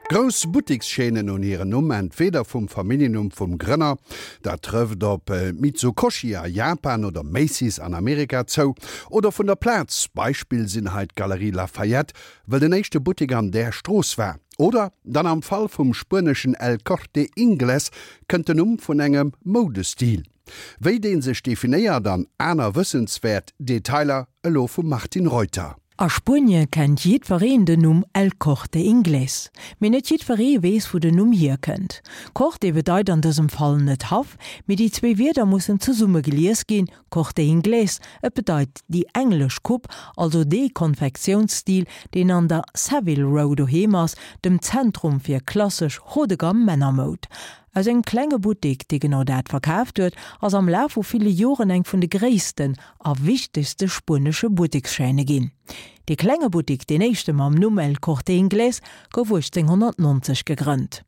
Grouss Buttekschaînen hunn hiren Numm entweeder vum Familljennumm vum Grënner, dat trëfft op Mitsukoshi a Japan oder Macy's an Amerika zou, oder vun der Plaz, Beispill sinn hei d'Galeries Lafayette, wëll den éischte Buttek an där Strooss war. Oder dann am Fall vum spueneschen El Corte Inglés kënnt den Numm vun engem Moudestil. Wéi dee sech definéiert an aner wëssenswäert Detailer elo vum Martine Reuter. A Spuenie kennt jiddwereen den Numm El Corte Inglés. Mee net jiddweree weess wou den Numm hierkënnt. Corte bedeit an dësem Fall net Haff, mee déi zwéi Wierder mussen zesumme gelies ginn, Corte Inglés, et bedeit déi englesch Coupe, also dee Konfektiounsstil, deen an der Savile Row doheem ass, dem Zentrum fir klassesch haut-de-gamme Männermoud. Aus engem klenge Buttek, dee genau dat verkaaft huet, ass am Laf vu ville Joren eng vun de gréissten a wichtegste spuenesche Buttekschaîne ginn. Dee klenge Buttek, deen éischte mam Numm El Corte Inglés, gouf 1890 gegrënnt.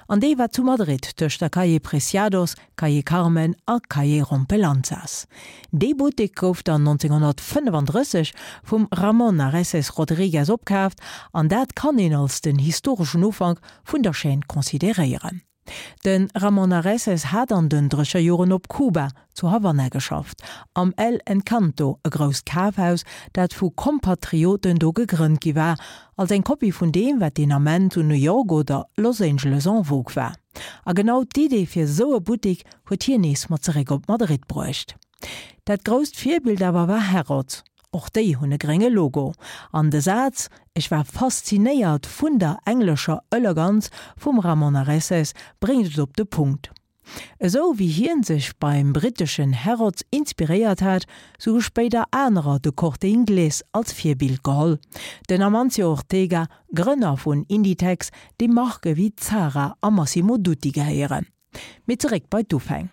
An dee war zu Madrid tëscht der Calle Preciados, Calle Carmen a Calle Rompelanzas. Dee Buttek gouf dann 1935 vum Ramón Areces Rodríguez opkaaft an dat kann een als den historeschen Ufank vun der Chaîne consideréieren. De Ramon Areces hat an den Drécherjoren op Kuba, zu Havanna geschafft, am El Encanto, e grousst Kafhaus, dat vu Kompatrioten do gegrënnt gi war, als eng Kopie vun deem, wat deen Ament zu New York oder Los Angeles en vogue war. A genau d'Idee fir esou e Buttek huet hien nees mat zeréck op Madrid bruecht. Dat grousst Virbild awer war Harrods. Och déi hunn e grénge Logo. An de Saz Ech war faszinéiert vun der englescher Eleganz vum Ramon Areces bréngt et op de Punkt. Esou wéi hien sech beim britteschen Harrods inspiréiert hat, sou hu spéider anerer de Corte Inglés als Virbild geholl. Den Amancio Ortega, Grënner vun Inditex, deem Marke wéi Zara a Massimo Dutti gehéieren. Mee zeréck bei d'Ufäng.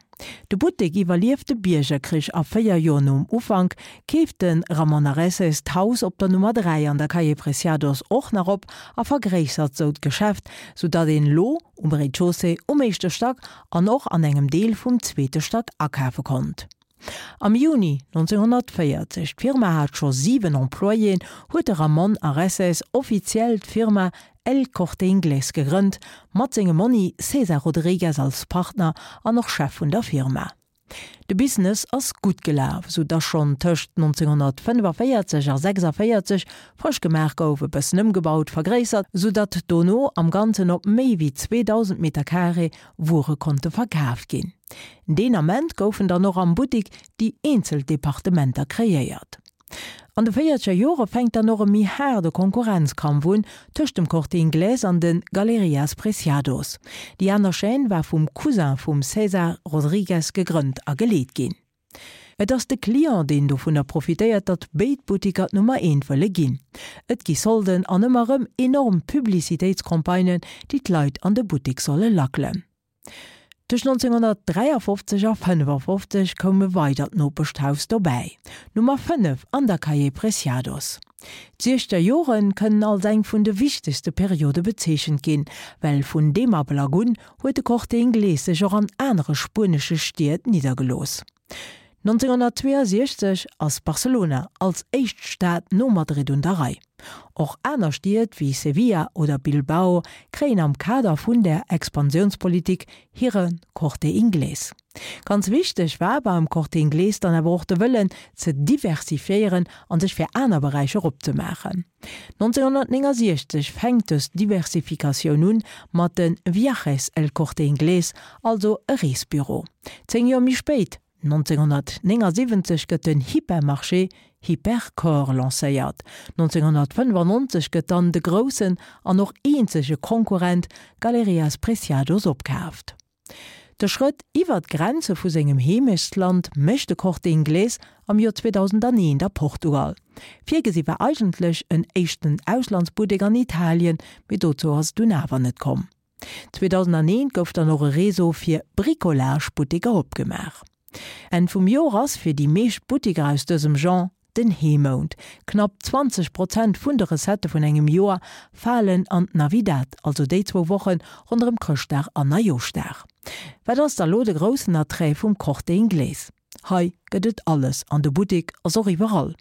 De Buttek iwwerlieft de Biergerkrich a 4 Joer nom Ufank keeft de Ramon Areces d'Haus op der Nummer 3 an der Calle Preciados och nach op a vergréissert sou d'Geschäft, sou datt een lo um Rez-de-chaussée, um éischte Stack an och an engem Deel vum zweete Stack akafe konnt. Am Juni 1940, d'Firma hat scho 7 Employéen, huet de Ramon Areces offiziell d'Firma El Corte Inglés gegrënnt, mat sengem Monni César Rodriguez als Partner an och Chef vun der Firma. De Business ass gutt gelaf, sou dass schonn tëscht 1945 a 46 frësch gemaach gouf, e bëssen ëmgebaut, vergréissert, sou datt dono am Ganzen op méi wéi 2.000 Meter Carré Wuere konnte verkaf ginn. Deen Ament goufen dann och am Buttik déi eenzel Departementer kreéiert. An de véierzeger Jore fänkt dann och e méi haarde Konkurrenzkampf un tëscht dem Corte Inglés an de Galerias Preciados. Déi aner Chaîne war vum Cousin vum César Rodriguez gegrënnt a geleet ginn. Et ass de Client, deen dovunner profitéiert, datt béid Buttiker d'Nummer eent wëlle ginn. Et gi Solden an ëmmer erëm enorm Publicitéitscampagnen, déi d'Leit an de Buttek solle lackelen. Tëscht 1953 a 55 koum e weidert Nopeschhaus dobäi, Nummer 5 an der Calle Preciados. D'Siechzeger Jore kënnen als eng vun de wichtegste Periode bezeechent ginn, well vun deem Ablack un huet de Corte Inglés sech och an anere spuenesche Stied niddergelooss. 1962 ass Barcelona als éischt Stad no Madrid un der Rei. Och aner Stied wéi Sevilla oder Bilbao kréien am Kader vun der Expansiounspolitik hire Corte Inglés. Ganz wichteg war beim Corte Inglés dann awer och de Wëllen ze diversifiéieren an sech fir aner Beräicher opzemaachen. 1969 fänkt dës Diversifikatioun un mat de Viajes El Corte Inglés, also e Reesbüro. Zéng Joer méi spéit, 1979, gëtt den Hypermarché Hipercor lancéiert. 1995 gëtt dann de groussen an och eenzege Konkurrent Galerias Preciados opkaaft. De Schrëtt iwwer d'Grenze vu sengem Heemechtsland mécht de Corte Inglés am Joer 2001 a Portugal. Virgesi war eigentlech en éischten Auslandsbuttek an Italien, mee dozou ass et dunn awer net komm. 2001 gouf dann och e Réseau fir Bricolage-Butteker opgemaach. Enn vum Joer ass fir déi meescht Butteker aus dësem Genre den Heemount. Knapp 20 Prozent vun de Recettë vun engem Joer falen an d'Navidad, also déi zwou Woche ronderëm Chrëschtdag an Neijoschdag. Wat ass da lo de groussen Attrait vum Corte Inglés? Hei gëtt et alles an de Buttek ass och iwwerall.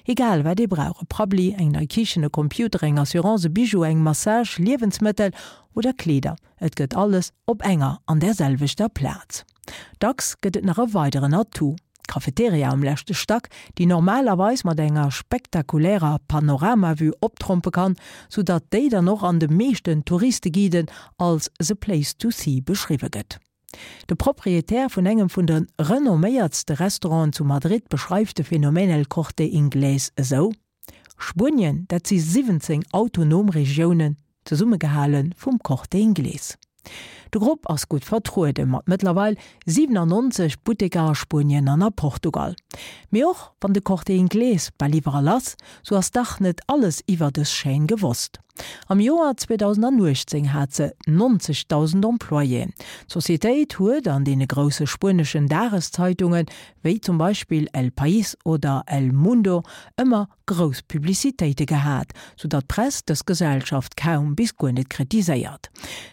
Egal wat ee brauch, e Prabbeli, eng nei Kichen, e Computer, eng Assurance, e Bijou, eng Massage, Liewensmëttel oder Kleeder, et gëtt alles op enger an där selwechter Plaz. Dacks gëtt et nach e weideren Atout, d'Cafeteria um leschte Stack, déi normalerweis mat enger spektakulärer Panoramavue optrompe kann, sou datt déi dann och an de meeschten Touristeguiden als the place to see beschriwwe gëtt. De Proprietär vun engem vun de renomméiertste Restauranten zu Madrid beschreift de Phänomen El Corte Inglés esou, Spuenien, dat si 17 autonom Regiounen, zesummegehale vum Corte Inglés. De Grupp ass gutt vertruede mat mëttlerweil 97 Butteker a Spuenien an a Portugal. Mee och wann de Corte Inglés bal iwwerall ass, sou ass dach net alles iwwer dës Chaîne gewosst. Am Joer 2018 hat se 90.000 Employéen. D'Societéit huet an deene grousse spueneschen Dageszeitungen, wéi zum Beispill El País oder El Mundo, ëmmer grouss Publicitéite gehat, sou datt d'Press dës Gesellschaft kaum bis guer net kritiséiert.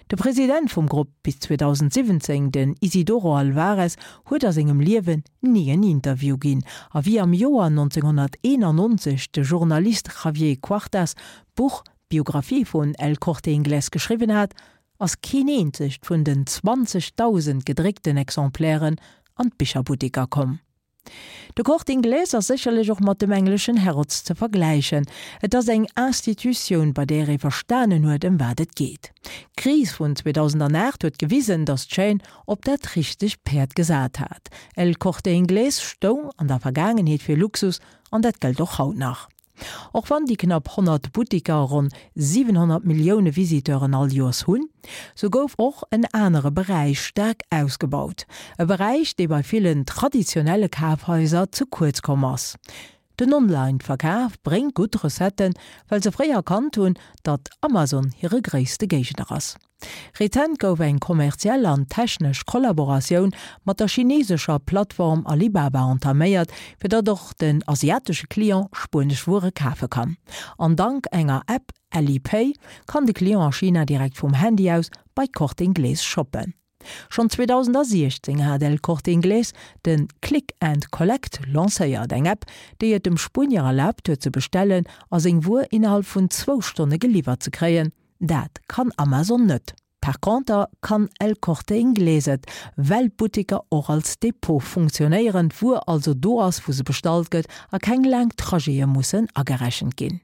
De President vum Grupp bis 2017, den Isidoro Alvarez, huet a sengem Liewen ni en Interview ginn, a wéi am Joer 1991 de Journalist Javier Cuartas d'Buch Biographie vun El Corte Inglés geschriwwen hat, ass keen eenzegt vun den 20.000 gedréckten Exemplairen an d'Bicherbutteker komm. De Corte Inglés ass sécherlech och mat dem engleschen Harrods ze vergläichen. Et ass eng Institutioun, bei där ee verstanen huet, ëm wat et geet. D'Kris vun 2008 huet gewisen, datt d'Chaîne op dat richtegt Päerd gesat hat. El Corte Inglés stoung an der Vergaangenheet fir Luxus an dat gëllt och haut nach. Och wann déi knapp 100 Buttiker ronn 700 Millioune Visiteuren all Joers hunn, sou gouf och en anere Beräich staark ausgebaut. E Beräich, dee bei villen traditionelle Kafhaiser ze kuerz komm ass. Den Online-Verkaf bréngt gutt Recetten, well se fréi erkannt hunn, datt Amazon hire gréisste Géigner ass. Rezent gouf eng kommerziell an technesch Kollaboratioun mat der chinesescher Plattform Alibaba entaméiert, fir datt och den asiatesche Client spuenesch Wuere kafe kann. An dank enger App, Alipay, kann de Client a China direkt vum Handy aus bei Corte Inglés shoppen. Schonn 2016 hat El Corte Inglés de Click and Collect lancéiert, eng App, déi et dem Spuenier erlaabt huet ze bestellen a seng Wuer innerhalb vun zwou Stonne geliwwert ze kréien. Dat kann Amazon net. Par conter kann El Corte Inglés et, well d'Butteker och als Depot funktionéieren, d'Wuer also do ass, wou se bestallt gëtt a keng laang Trajete mussen agerechent ginn.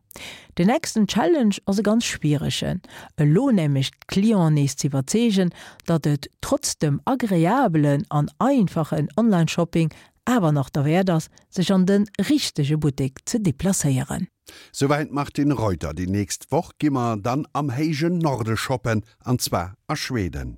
Den nächsten Challenge ass e ganz schwieregen, elo nämlech d'Clienten nees z'iwwerzeegen, datt et trotz dem agreabelen an einfachen Online-Shopping awer nach derwäert ass, sech an de richtege Buttek ze deplacéieren. Souwäit d'Martine Reuter. Déi nächst Woch gi mer dann am héijen Norde shoppen, an zwar a Schweden.